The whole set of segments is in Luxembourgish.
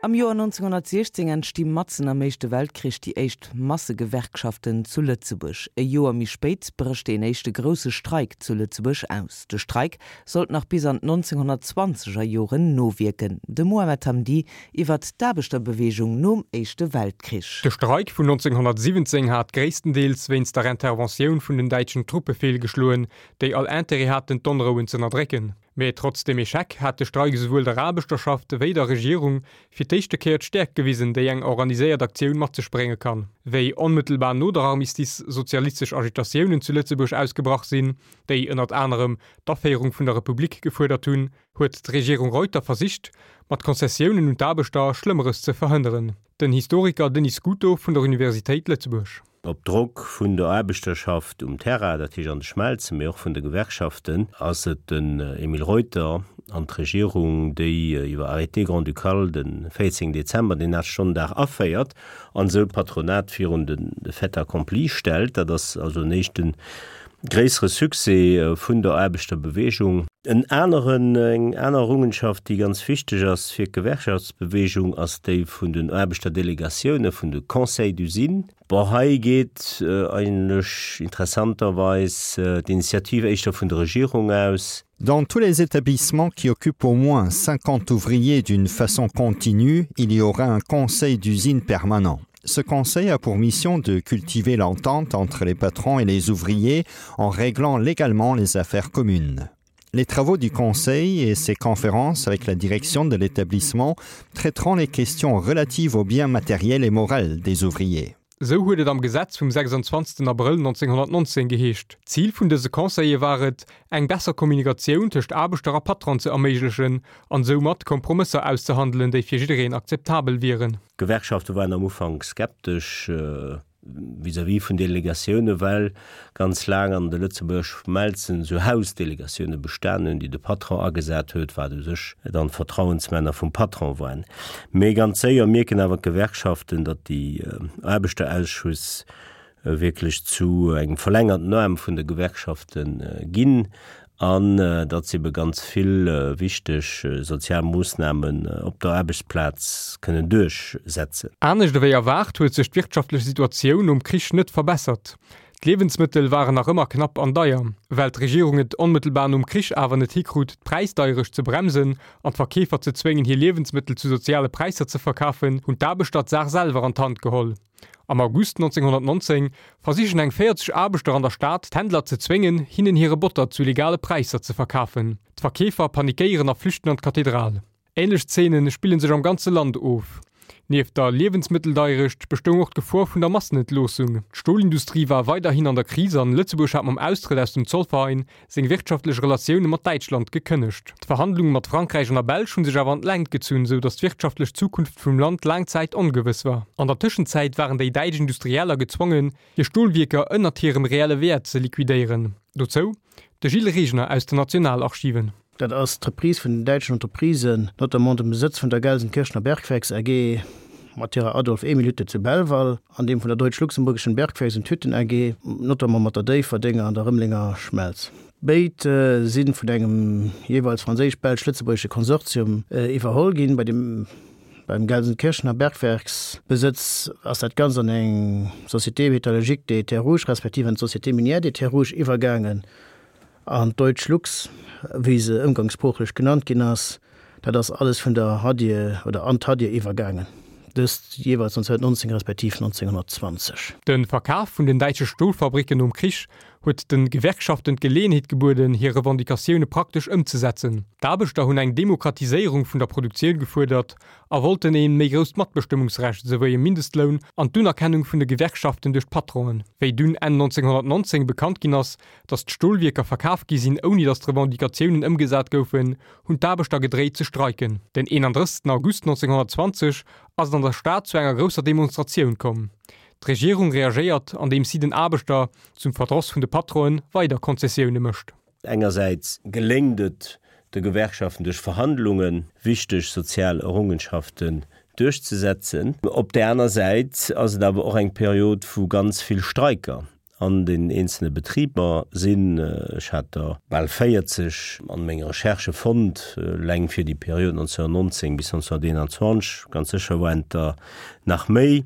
Am Joer 1916 entsti matzen am Éischte Weltkrich déi éischt Massegewerkschaften zu Lëtzebuerg. E Joer méi spéit brécht deen éischte grousse Streik zu Lëtzebuerg aus. De Streik sollt nach bis an d'Nonzénhunnertzwanzeger Joren nowierken. De Mohamed Hamdi iwwert d'Aarbechterbeweegung nom Éischte Weltkrich. De Streik vun 1917 hat gréisstendeels wéinst der Interventioun vun den däitschen Truppe feelgeschloen, déi all Intérêt haten d'Onrouen z'ënnerdrécken. Mee trotz dem Echec hat de Streik esouwuel der Aarbechterschaft wéi der Regierung fir d'éischte Kéier d'Stäerkt gewisen, déi eng organiséiert Aktioun mat sech brénge kann. Wéi onmëttelbar no der Armistice sozialistesch Agitatiounen zu Lëtzebuerg ausgebrach sinn, déi ënnert anerem d'Aféierung vun der Republik gefuerdert hunn, huet d'Regierung Reuter versicht, mat Konzessiounen un d'Aarbechter Schlëmmeres ze verhënneren. Den Historiker Denis Scuto vun der Universitéit Lëtzebuerg. Op Drock vun der Aarbechterschaft um Terrain, dat heescht an de Schmelzen, mee och vun de Gewerkschaften, ass et den Emile Reuter an d'Regierung, déi iwwer Arrêté grand-ducal de 14 Dezember den Aachtstonnendag aféiert an esou d'Patronat virun de Fait accompli stellt. Dat ass also en éischte gréissere Succès vun der Aarbechterbewegung. En aneren, eng aner Errungenschaft, déi ganz wichteg ass fir d'Gewerkschaftsbewegung, ass déi vun den Aarbechterdelegatiounen, vun de Conseils d'usine. Bon, hei geet eigentlech interessanterweis d'Initiativ éischter vun der Regierung aus. Dans tous les établissements qui occupent au moins 50 ouvriers d'une façon continue, il y aura un conseil d'usine permanent. Ce conseil a pour mission de cultiver l'entente entre les patrons et les ouvriers en réglant légalement les affaires communes. Les travaux du conseil et ses conférences avec la direction de l'établissement traiteront les questions relatives aux biens matériels et morels des ouvriers. Esou huet et am Gesetz vum 26 Abrëll 1919 geheescht. D'Zil vun dëse Conseile war et, eng besser Kommunikatioun tëscht Aarbechter a Patron ze erméiglechen an soumat Kompromësser auszehandelen, déi fir jiddereen akzeptabel wieren. D'Gewerkschafte waren am Ufank skeptesch vis-à-vis vun Delegatioune, well ganz laang an de Lëtzebuerger Schmelzen esou Hausdelegatioune bestan hunn, déi de Patron agesat huet, wat u sech dann d'Vertrauensmänner vum Patron waren. Mee ganz séier mierken awer d'Gewerkschaften, datt déi Aarbechterausschuss wierklech zu engem verlängerten Aarm vun de Gewerkschafte ginn an datt se ebe ganz vill wichteg sozial Moossnamen op der Aarbechtsplaz kënnen duerchsetzen. Anescht ewéi erwaart huet sech d'wirtschaftlech Situatioun nom Krich net verbessert. D'Liewensmëttel waren nach ëmmer knapp an deier. Well d'Regierung et onmëttelbar nom Krich awer net hikrut, d'Präisdeierecht ze bremsen an d'Verkeefer ze zwéngen, hir Liewensmëttel zu soziale Präisser ze verkafen, hunn d'Aarbechter d'Saach selwer an d'Hand geholl. Am August 1919 versichen eng 40 Aarbechter an der Stad, d'Händler ze zwéngen, hinnen hire Botter zu legale Präisser ze verkafen. D'Verkeefer panikéieren a flüchten an d'Kathedral. Änlech Zeene spille sech am ganze Land of. Nieft der Liewensmëtteldeierecht bestoung och d'Gefor vun der Massenentloossung. D'Stolindustrie war weiderhin an der Kris an Lëtzebuerg hat mam Austrëtt aus dem Zollverein seng wirtschaftlech Relatioune mat Däitschland gekënnegt. D'Verhandlunge mat Frankräich an der Belsch hu sech awer an d'Längt gezunn, sou datt d'wirtschaftlech Zukunft vum Land laang Zäit ongewëss war. An der Tëschenzäit waren déi däitsch Industrieller gezwongen, hir Stolwierker ënnert hirem reelle Wäert ze liquidéieren. Dozou de Gilles Regner aus den Nationalarchiven. Dat ass d'Reprise vun den däitschen Entreprisen, notamment dem Besëtz vun der Gelsenkirchener Bergwerks AG mat hirer Adolf-Emil-Hütte zu Belval an deem vun der Deutsch-Luxemburgischen Bergwerks und Hütten AG, notamment mat der Déifferdenger an der Rëmelenger Schmelz. Béid si vun engem jeeweils franséisch-belsch-lëtzebuergesche Konsortium iwwerholl ginn. Bei dem beim Gelsenkirchener Bergwerksbesëtz ass dat Ganzt an eng Société métallurgique des Terres Rouges respektiv an d'Société minière des Terres Rouges iwwergaangen. An d'Deutsch Lux, wéi se ëmgangssproochlech genannt ginn ass, dat ass alles vun der Hadie oder an d'Hadie iwwergaangen, dëst jeeweils 1919 respektiv 1920. De Verkaf vun den däitsche Stolfabricken nom Krich huet de Gewerkschaften d'Geleeënheet gebueden, hir Revendicatioune praktesch ëmzesetzen. D'Aarbechter hunn eng Demokratiséierung vun der Produktioun gefuerdert a wollten ee méi grousst Matbestëmmungsrecht esouwéi e Mindestloun an d'Unerkennung vun de Gewerkschaften duerch d'Patronen. Wéi dunn Enn 1919 bekannt ginn ass, Datt d'Stolwierker verkaf gi sinn, ouni datt d'Revendicatiounen ëmgesat goufen, hunn d'Aarbechter gedréit ze streiken. Den 31 August 1920 ass et an der Stad zu enger grousser Demonstratioun komm. D'Regierung reagéiert, andeems si den Aarbechter, zum Verdross vun de Patronen, weider Konzessioune mécht. Engersäits geléngt et de Gewerkschaften duerch Verhandlunge wichteg sozial Errungenschaften duerchzesetzen. Op där aner Säit ass et awer och eng Period vu ganz vill Streiker. An den eenzelne Betriber sinn, ech hat der bal 40 an menge Recherchë fonnt, eleng fir déi Period 1919 bis 1921, ganz sécher waren et der nach méi.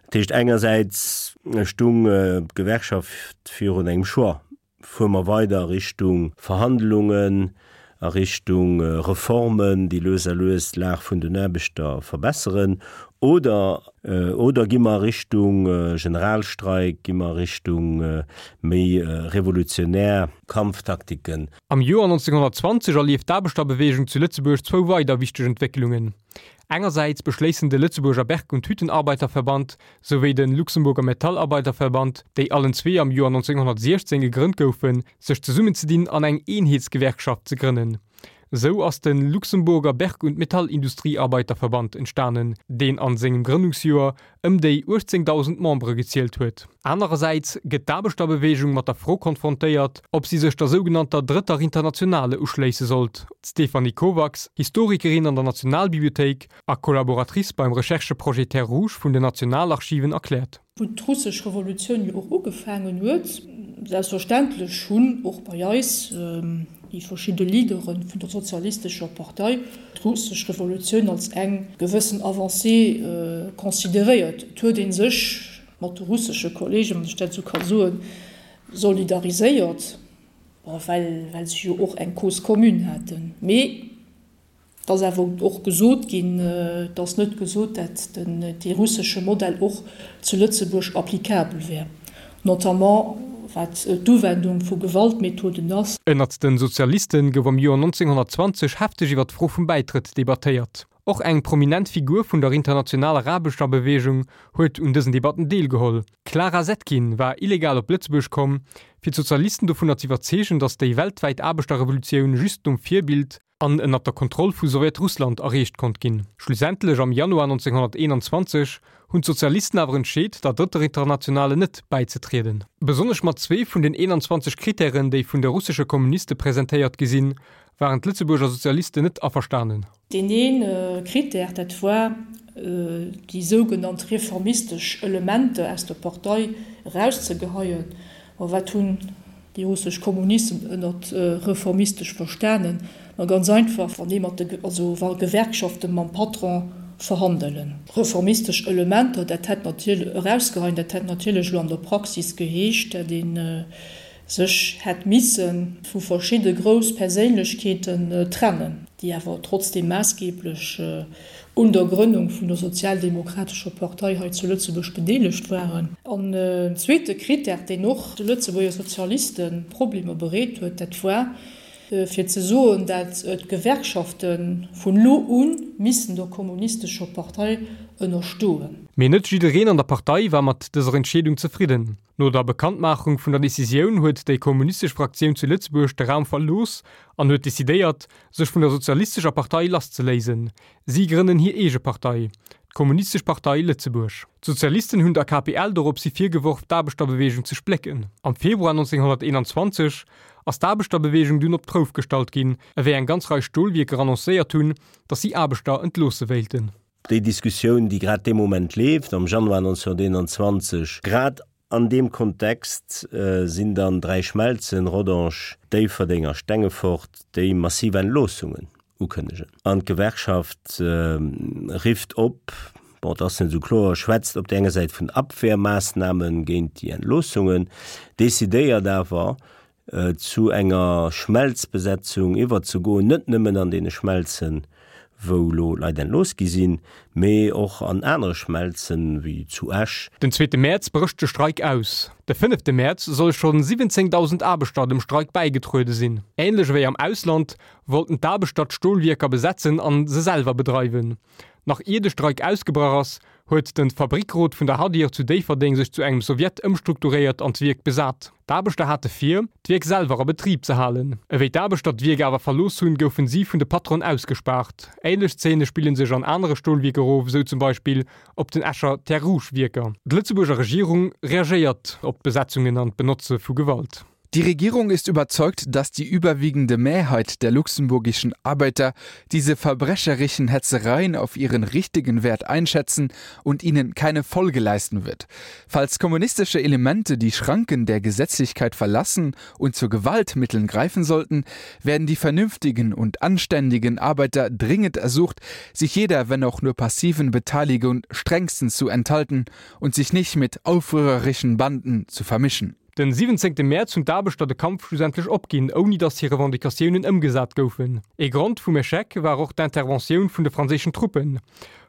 Dat heescht, engersäits stung d'Gewerkschaft virun engem Choix, Fuere mer weider a Richtung Verhandlungen, a Richtung Reformen, déi lues a lues d'Lag vun den Aarbechter verbesseren, oder oder gi mer a Richtung Generalstreik, gi mer a Richtung méi revolutionär Kampftaktiken? Am Joer 1920 erlieft d'Aarbechterbeweegung zu Lëtzebuerg zwou weider wichteg Entwécklungen. Engersäits beschléissen de Lëtzebuerger Berg und Hüttenarbeiterverband souwéi de Luxemburger Metallarbeiterverband, déi allen zwee am Joer 1916 gegrënnt goufen, sech zesummenzedinn an eng Eenheetsgewerkschaft ze grënnen. Esou ass de Luxemburger Berg und Metallindustriearbeiterverband entstanen, deen an sengem Grënnungsjoer ëm déi 18.000 Membere gezielt huet. Anerersäits gëtt d'Aarbechterbeweegung mat der Fro konfrontéiert, ob si sech der sougenannter Drëtter Internationale uschléisse sollt. D'Stéphanie Kovacs, Historikerin an der Nationalbibliothéik a Collaboratrice beim Rechercheprojet Terres Rouges vun den Nationalarchiven erkläert. Wou d'russesch Revolutioun jo och ugefaangen huet, selbstverständlech hunn och bei eis déi verschidde Leadere vun der sozialistescher Partei d'russesch Revolutioun als eng gewëssen Avancée consideréiert. Et huet ee sech mat de russesche Kollegen, wann ech dat esou ka soen, solidariséiert, bon, well, well se jo och eng Cause commune haten. Mee Et ass awer och gesot ginn, et ass net gesot, dat den dee russesche Modell och zu Lëtzebuerg applicabel wär, notamment wat d'Uwendung vu Gewaltmethoden ass. Ënnert den Sozialisten gouf am Joer 1920 hefteg iwwer d'Fro vum Bäitrëtt debattéiert. Och eng prominent Figur vun der internationaler Aarbechterbeweegung huet un dësen Debatten deelgeholl. D'Clara Zetkin war illegal op Lëtzebuerg komm, fir d'Sozialisten dovunner z'iwwerzeegen, datt déi weltwäit Aarbechterrevolutioun just nom Virbild an ënnert der Kontroll vu Sowjetrussland erreecht konnt ginn. Schlussendlech am Januar 1921 hunn d'Sozialisten awer entscheet, der Drëtter Internationale net bäizetrieden. Besonnesch mat zwee vun den 21 Krittären, déi vun de russesche Kommuniste presentéiert gi sinn, waren d'Lëtzebuerger Sozialisten net averstanen. Deen ee Krittär, dat war, déi sougenannt reformistesch Elementer aus der Partei erauszegeheien. Ma wat hunn déi russesch Kommunisten ënnert reformistesch verstanen? Ma ganz einfach, wann ee mat de, also wa Gewerkschafte mam Patron verhandelen. Reformistesch Elementer, dat hätt natierlech, erausgeheien, dat hätt natierlech elo an der Praxis geheescht, dat ee sech hätt misse vu verschidde grouss Perséinlechkeeten trennen, déi awer trotzdeem maassgeblech un der Grënnung vun der Sozialdemokratescher Partei hei zu Lëtzebuerg bedeelegt waren. An en zweete Critère, deen och de Lëtzebuerger Sozialiste Problemer bereet huet, dat war, fir ze soen, dat d'Gewerkschafte vun elo u missten der Kommunistescher Partei ënnerstoen. Mee net jiddereen an der Partei war mat dëser Entscheedung zefridden. No der Bekanntmaachung vun der Decisioun huet déi kommunistesch Fraktioun zu Lëtzebuerg de Raum verlooss an huet decidéiert, sech vun der Sozialistescher Partei lasszeléisen. Si grënnen hir eege Partei, d'Kommunistesch Partei Lëtzebuerg. D'Sozialisten hunn der KPL doropshi virgeworf, d'Aarbechterbeweegung ze splécken. Am Februar 1921 ass d'Aarbechterbeweegung dunn op d'Prouf gestallt ginn, ewéi eng ganz Rei Stolwierker annoncéiert hunn, datt si Aarbechter entloosse wéilten. Déi Diskussioun, déi grad dee Moment leeft, am Januar 1921, grad an deem Kontext sinn dann dräi Schmelzen, Rodange, Déifferdeng a Stengefort, déi massiv Entloossungen ukënnegen. An d'Gewerkschaft rifft op, bon, et ass net esou kloer, schwätzt op där enger Säit vun Abwehrmaßnahme géint déi Entloossungen, decidéiert awer, zu enger Schmelzbesetzung iwwerzegoen, net nëmmen an deene Schmelzen, wou elo Leit entlooss gi sinn, mee och an anere Schmelzen, wéi zu Esch. Den zweete Mäerz brécht de Streik aus. De fënnefte Mäerz solle schonn 17.000 Aarbechter dem Streik bäigetruede sinn. Änlech ewéi am Ausland wollten d'Aarbechter d'Stolwierker besetzen an se selwer bedreiwen. Nach ier de Streik ausgebrach ass, huet de Fabrickrot vun der Hadir zu Déifferdeng sech zu engem Sowjet ëmstrukturéiert an d'Wierk besat. D'Aarbechter hate vir, d'Wierk selwer a Betrib ze halen. Ewéi d'Aarbechter d'Wierk awer verlooss hunn, goufen si vun de Patronen ausgespaart. Ähnlech Zeene spille sech an anere Stolwierker of, esou zum Beispill op den Escher Terres-Rouges-Wierker. D'Lëtzebuerger Regierung reagéiert op d'Besetzungen an d'Benotze vu Gewalt. Die Regierung ist überzeugt, dass die überwiegende Mehrheit der luxemburgischen Arbeiter diese verbrecherischen Hetzereien auf ihren richtigen Wert einschätzen und ihnen keine Folge leisten wird. Falls kommunistische Elemente die Schranken der Gesetzlichkeit verlassen und zu Gewaltmitteln greifen sollten, werden die vernünftigen und anständigen Arbeiter dringend ersucht, sich jeder, wenn auch nur passiven Beteiligung strengstens zu enthalten und sich nicht mit aufrührerischen Banden zu vermischen. Den 17 Mäerz hunn d'Aarbechter de Kampf schlussendlech opginn, ouni datt hir Revendicatiounen ëmgesat goufen. Ee Grond vum Echec war och d'Interventioun vun de franséischen Truppen.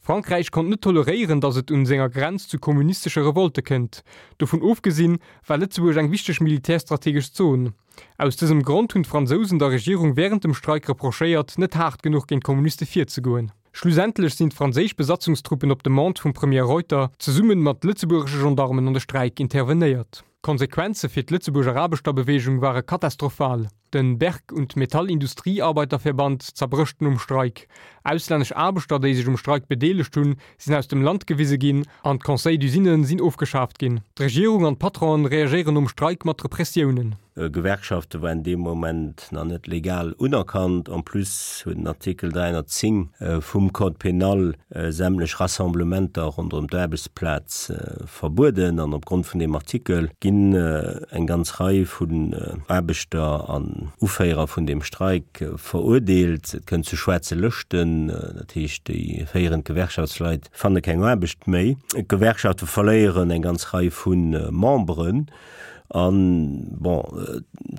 Frankräich konnt net toleréieren, datt et un senger Grenz zu kommunistesche Revolte kënnt. Dovun ofgesinn, war Lëtzebuerg eng wichteg militärstrategesch Zon. Aus dësem Grond hunn d'Fransousen der Regierung wärend dem Streik reprochéiert, net haart genuch géint d'Kommuniste virzegoen. Schlussendlech sinn d'franséisch Besatzungstruppen op Demande vum Premier Reuter zesumme mat lëtzebuergesche Gendarmen an de Streik intervenéiert. D'Konsequenze fir d'Lëtzebuerger Aarbechterbeweegung ware katastrophal. Den Berg und Metallindustriearbeiterverband zerbrécht nom Streik. Auslännesch Aarbechter, déi sech um Streik bedeelegt hunn, sinn aus dem Land gewise ginn an d'Conseils d'usines sinn ofgeschaaft ginn. D'Regierung an d'Patronen reagéieren nom Streik mat Repressiounen. Gewerkschafte waren dee Moment nach net legal unerkannt. En plus huet den Artikel 310 vum Code pénal sämtlech Rassemblementer ronderëm d'Aarbechtsplaz verbueden. An opgrond vun deem Artikel ginn eng ganz Rei vun Aarbechter an Uféierer vun deem Streik verurdeelt. Et kënnt zu schwaarze Lëschten, dat heescht déi féierend Gewerkschaftsleit fanne keng Aarbecht méi. D'Gewerkschafte verléieren eng ganz Rei vu Memberen. An, bon,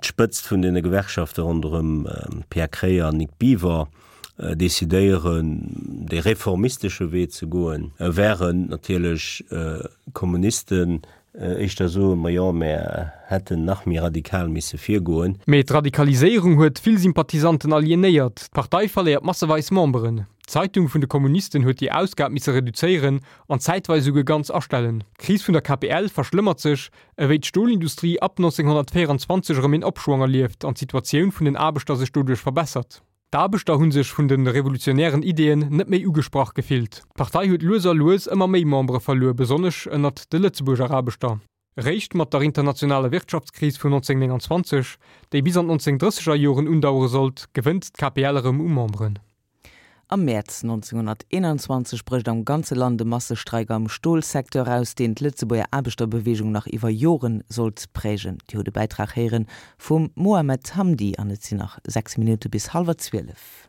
d'Spëtzt vun deene Gewerkschafte ronderëm Pierre Kreyer an Nic Biver decidéieren, dee reformistesche Wee ze goen, während natierlech d'Kommunisten éischter soen, Ma jo, mär hätten nach méi radikal misse virgoen. Mee d'Radikaliséierung huet vill Sympathisanten alienéiert, d'Partei verléiert masseweis Memberen. D'Zeitung vun de Kommunisten huet hir Ausgab misse reduzéieren an zäitweis esouguer ganz astellen. D'Kris vun der KPL verschlëmmert sech, ewéi d'Stolindustrie ab 1924 erëm een Opschwong erlieft an d'Situatioun vun den Aarbechter sech doduerch verbessert. D'Aarbechter hu sech vun de revolutionären Ideeën net méi ugesprach gefillt. D'Partei huet lues a lues ëmmer méi Membere verluer, besonnesch ënnert de Lëtzebuerger Aarbechter. Eréischt mat der internationaler Wirtschaftskris vun 1929, déi bis an d'Nonzéngdrësseger Joren undauere sollt, gewënnt d'KPL erëm u Memberen. Am Mäerz 1921 brécht am ganze Land e Massestreik am Stolsecteur aus, deen d'Lëtzebuerger Aarbechterbeweegung nach iwwer Joren sollt prägen. Dir hutt e Bäitrag héiere vum Mohamed Hamdi an et sinn nach 6 Minutte bis hallwer 12.